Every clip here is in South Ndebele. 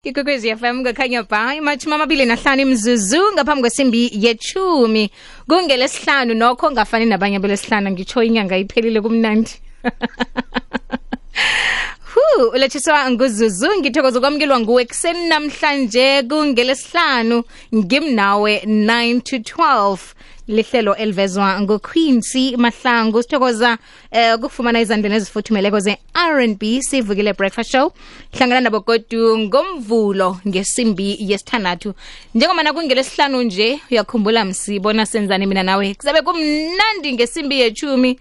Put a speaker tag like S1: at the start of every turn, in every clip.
S1: Ikokwezi FM ngakhanya ba imachuma amabili nahlanu imzuzu ngaphambi kwesimbi yechumi kungelesihlanu nokho ngafani nabanye belesihlanu ngitsho inyanga iphelile kumnandi. Ulethiswa nguzuzu ngithokoza kwamkelwa nguwe kuseni namhlanje kungelesihlanu ngimnawe 9 to 12 lihlelo elivezwa nguQuincy Mahlangu. Sithokoza ukufumana izandleni ezifuthumeleko ze-R&B sivukile breakfast show hlangana nabo godu ngomvulo ngesimbi yesithandathu. Njengomana kungelesihlanu nje uyakhumbula msibona senzani mina nawe kuzabe kumnandi ngesimbi yechumi.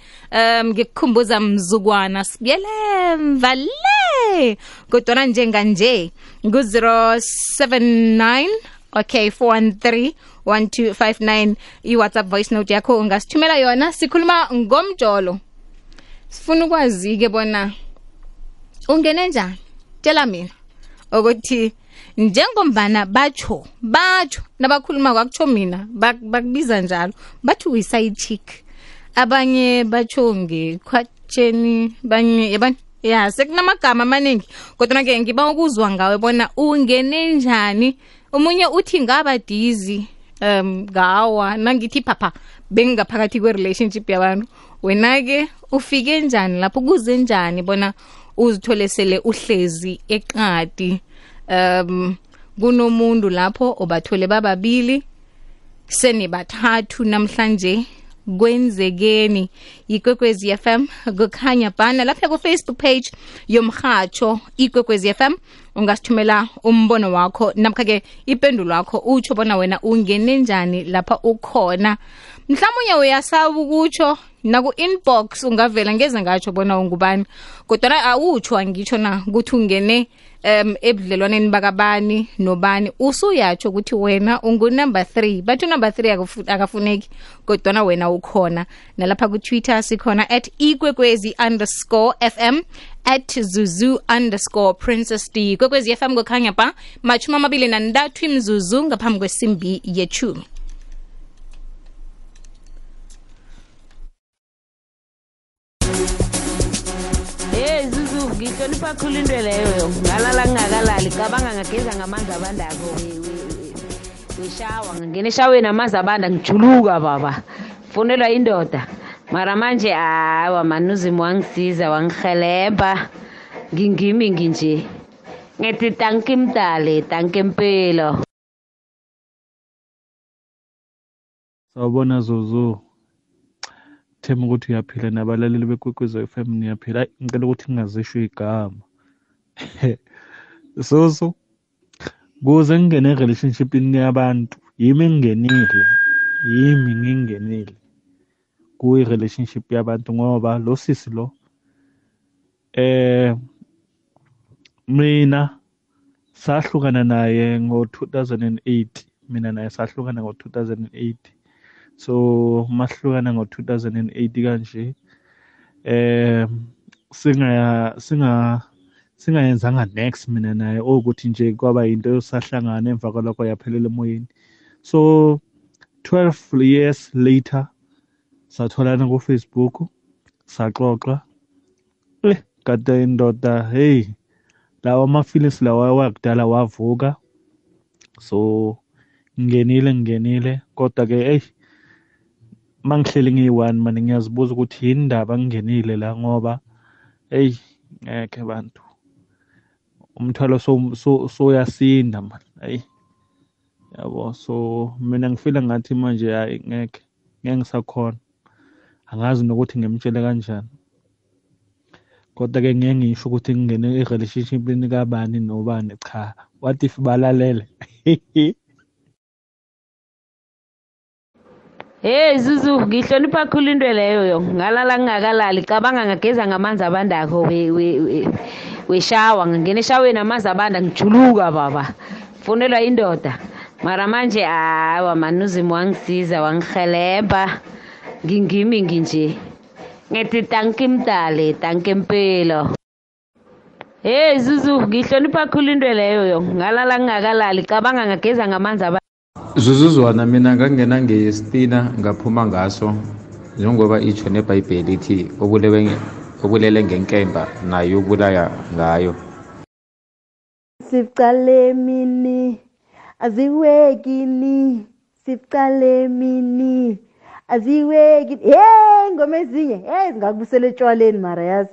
S1: Ngikukhumbuza mzukwana sibuyele mvale kodwa njenganje ngu-079 okay 413 1259 i-WhatsApp voice note yakho ungasithumela yona. Sikhuluma ngomjolo, sifuna ukwazi ke bona ungene njani. Tshela mina ukuthi njengombana batsho nabakhuluma kwakutsho mina bakubiza njalo bathi uyi-side chick, abanye batsho ngekhwatsheni, banye yabani ya sekunamagama amaningi kodwa ke ngiba ukuzwa ngawe bona ungene njani. Umunye uthi ngaba dizi ngawa nangithi papa bengaphakathi kwe-relationship yabantu. Wena ke ufike njani lapho, kuze njani bona uzithole sele uhlezi eqadi kunomuntu lapho obathole bababili senibathathu namhlanje kwenzekeni. Ikwekwezi FM kukhanya bana lapha ku Facebook page yomhatsho Ikwekwezi FM ungasithumela umbono wakho namkha ke ipendulo yakho utsho bona wena ungene njani lapha ukhona. Mhlawumnye uyasaba ukutsho naku inbox ungavela ngeze ngatsho bona ungubani kodwa awutsho angitsho na ukuthi ungene ebudlelwaneni bakabani nobani usuyatsho ukuthi wena ungu number 3 but number 3 akafuneki kodwa wena ukhona. Nalapha ku Twitter sikhona @ikwekwezi_FM @zuzu_princess D. Ikwekwezi FM kukhanya ba machuma amabili nandathu imzuzu ngaphambi kwesimbi yechumi.
S2: Ngihlonipha khulu into leyo ngalala ngingakalali cabanga ngageza ngamanzi abandako wishawa ngingena eshaweni amanzi abanda ngijuluka baba fonelwa indoda mara manje hawa manuzimu wangisiza wangihelebha ngingimi nginje ngithi tanki mdale tanki mpilo.
S3: Sawubona Zuzu, thema ukuthi uyaphila nabalaleli beKwekwezi FM niyaphila. Ngicela ukuthi ngingazisho igama Zuzu, kuze ngingene relationshipini yabantu yimi ngingenile kuyi-relationship yabantu ngoba lo sisi lo mina sahlukana naye ngo-2008. Mina naye sahlukana ngo-2008. So mahlukana ngo-2008 kanje singayenzanga next mina naye ukuthi nje kwaba into yosahlangana emva kwalokho yaphelela emoyeni. So 12 years later satholana ku Facebook saxoxa kade indoda hey lawa ama-feelings lawa wakudala wavuka. So ngingenile kodwa ke mangihleli ngiyi-1 manje ngiyazibuza ukuthi yini indaba ngingenile la ngoba ngeke bantu umthwalo soyasinda manje yabo. So mina ngifila ngathi manje hayi ngeke ngisakhona, angazi nokuthi ngimtshele kanjani kodwa ke ngeke ngisho ukuthi ngingene e-relationshipini kabani nobani cha. What if balalele?
S2: Zuzu ngihlonipha khulu into leyo ngalala ngingakalali cabanga ngageza ngamanzi abandako wishawa ngingena eshaweni amanzi abanda ngijuluka baba fonelwa indoda mara manje hawa manuzimu wangisiza wangihelebha ngingimi nginje ngithi tanki mdale tanki mpilo. Zuzu ngihlonipha khulu into leyo ngalala ngingakalali cabanga ngageza ngamanzi abanda.
S4: Zuzuzwana mina ngangena ngestina ngaphuma ngaso njengoba itsho neBhayibheli ithi obulele ngenkemba naye ubulaya ngayo.
S5: Sifcale mini aziwekini sifcale aziwekini ngoma ezinye zingakubusela etshwaleni mara yazi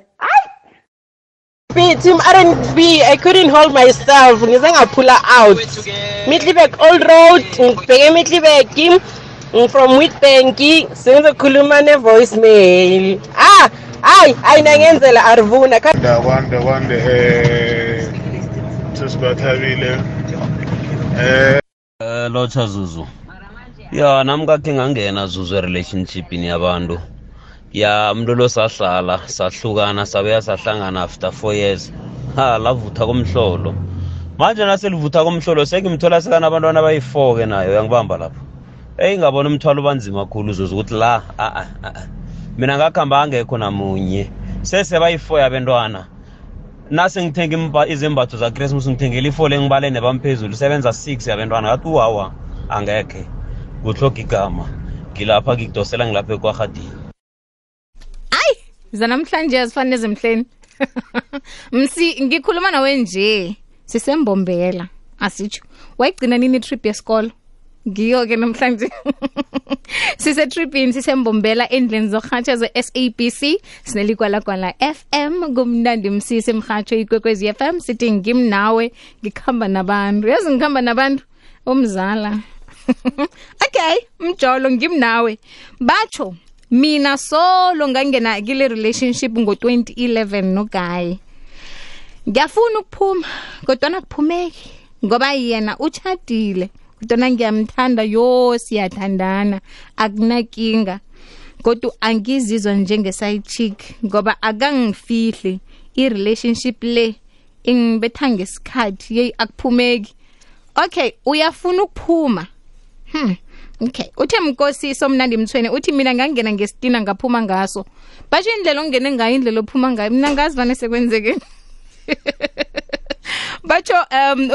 S6: Team R&B, I couldn't hold myself. Ngize ngaphula out. Middelburg Old Road, ngibheke Middelburg from Witbank, sengizokhuluma ne-voicemail. Ayinangenzela Arvuna.
S7: Wande sesibathabile.
S8: Locha Zuzu. Ya nami kake ngangena Zuzu relationship ni yabantu. Ya mntolo sahlala sahlukana sabuya sahlangana after 4 years lavutha komhlolo manje naselivutha komhlolo sekimthola sekana abantwana abayi4 ke nayo yangibamba lapho ngabona umthwalo banzima kakhulu Zuzu ukuthi la mina ngakhamba angekho namunye sese bayi4 yabantwana nase ngithenga izembatho za Christmas ngithengela i4 lengibale nebamphezulu sebenza 6 yabantwana ngathi wawa angekhe kuhloka igama ngilapha ngikudosela ngilapha eKwaGadini
S1: zanamhlanje azifanele zemhleni msi ngikhuluma nawe nje sisembombela asitsho wayigcina nini trip yesikolo ngiyo ke namhlanje sise tripini sisembombela endlini zokuhatsha ze-SABC sinelikwala FM kumnandi msisi emhatsho ikwekwezi FM sithi ngimnawe ngikhamba nabantu yazi ngikhamba nabantu umzala okay mjolo ngimnawe batsho mina solo ngangena kile relationship ngo2011 no guy ngiyafuna ukuphuma kodwa akuphumeki ngoba yena uchadile kodwa ngiyamthanda siyathandana akunakinga kodwa angizizwa njenge side chick ngoba akangifihli i-relationship le ingibetha ngesikhathi akuphumeki okay uyafuna ukuphuma okay uthe Mkosiso Mnandi Mthweni uthi mina ngangena ngestina ngaphuma ngaso basho indlela ongene ngayo indlela ophuma ngayo mina ngazi vane sekwenzeke batsho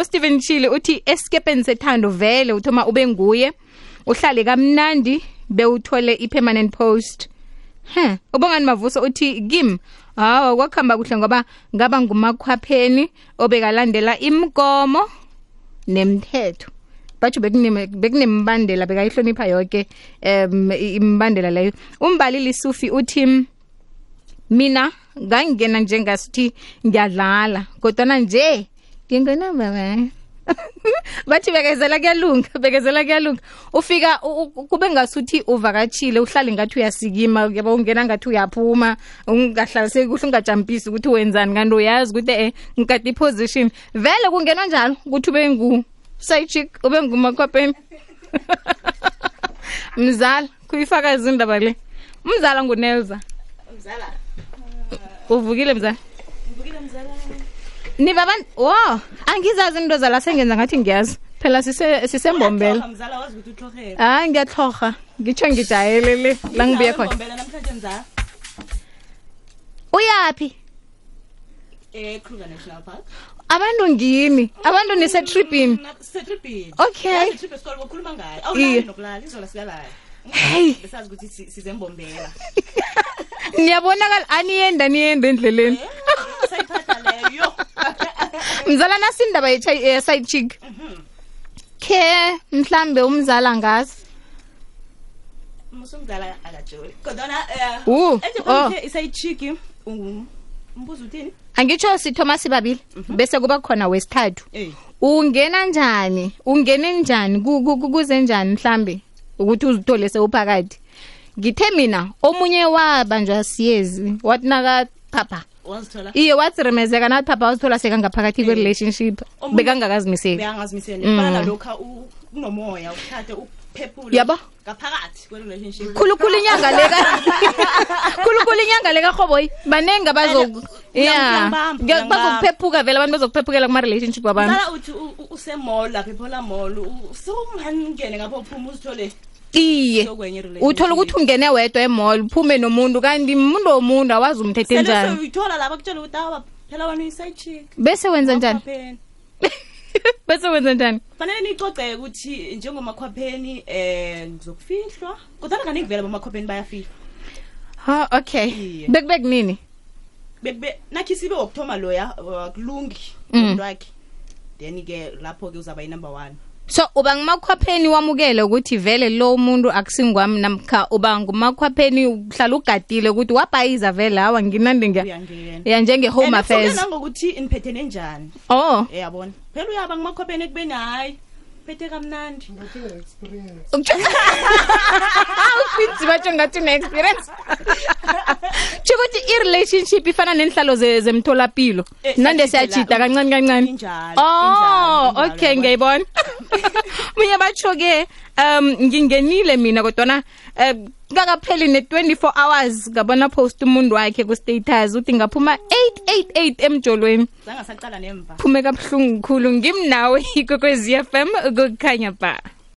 S1: uSteven Chile uthi escapeni sethando vele uthoma ube nguye uhlale kamnandi bewuthole ipermanent post ubongani Mavuso uthi kim kwakhamba kuhle ngoba ngaba ngumakhwapheni obekalandela imgomo nemthetho batsho bekunembandela bekayihlonipha yonke imbandela leyo umbalili Sufi uthi mina ngangena njengasithi ngiyadlala kodwa nje ngingena baba bathi bekezela kuyalunga ufika kube ngasuthi uvakatshile uhlale ngathi uyasikima yaba ungena ngathi uyaphuma ungahlaliseki kuhle ungajampisi ukuthi wenzani kanti uyazi ukuthi ngikade iposition vele kungenwa njalo ukuthi ube ngu side chick ube ngumakhwapheni mzala kuyifaka izindaba le mzala nguNelza mzala uvukile mzala niba abantu angizazi into zala sengenza ngathi ngiyazi phela sisembombela
S9: mzala wazi ukuthi uthlohela
S1: ngiyatloga ngitsho ngijayelele la ngibuye khona
S9: mbombela namhlanje mzala
S1: uyapi
S9: Kruger National Park
S1: abantu ngini abantu nisetripini okay
S9: trip esikole ngokhuluma ngayo awulali nokulala izola sikalala
S1: hey
S9: besazi ukuthi sizembombela
S1: niyabonakala aniyenda endleleni
S9: sayiphatha leyo
S1: mzala nasindaba side chick ke mhlambe umzala ngazi
S9: musumzala akajoli kodwa iside chick umbuzo uthini
S1: angitsho sithoma sibabili bese kuba khona wesithathu ungena njani kuze njani mhlambe ukuthi uzithole sewuphakathi ngithe mina omunye wabanjwa siyezi wathi naka papa
S9: wazithola
S1: iye wathi remezeka nathi papa wazithola sekangaphakathi kwe relationship bekangazimiseli
S9: bana lokha unomoya uthathe uphephule
S1: yabo
S9: ngaphakathi kwe relationship
S1: khulukhulu inyanga leka khoboyi banengi abazoku bazokuphephuka vele abantu bazokuphephukela kuma relationship wabantu
S9: ngala uthi usemall lapha ephola mall sokungangene ngapha uphuma uzithole
S1: iye uthola ukuthi ungene wedwa emall uphume nomuntu kanti umuntu womuntu awazi umthethe njani
S9: sele uyithola lapha kutshela ukuthi phela wena uyiside chick
S1: bese wenza njani
S9: fanele nicoceke ukuthi njengomakhwapheni ngizokufihlwa kodwa kaningi vele bomakhwapheni bayafihlwa
S1: okay bekubek nini
S9: nakhi sibe wokuthoma loya akulungi umuntu wakhe then ke lapho ke uzaba number 1.
S1: So uba ngumakhwapheni wamukele ukuthi vele lo muntu akusingwami namkha uba ngumakhwapheni uhlala ugadile ukuthi wabhayiza vele hawa nginande ngiya njenge home affairs
S9: ngokuthi iniphethe nenjani yabona phela uyaba ngumakhwapheni ekubeni hayi phethe kamnandi ngathi experience ufinzi batsho ngathi une experience Chikuthi i-relationship ifana nenhlalo zemtholapilo nande siyachita kancane okay ngiyibona mina batsho ke ngingenile mina kodwa ngakapheli ne24 hours ngabona post umuntu wakhe ku status uthi ngaphuma 888 emjolweni zangasaqala nemva
S1: phume kabuhlungu kukhulu ngimnawe ikokwezi FM ukukhanya ba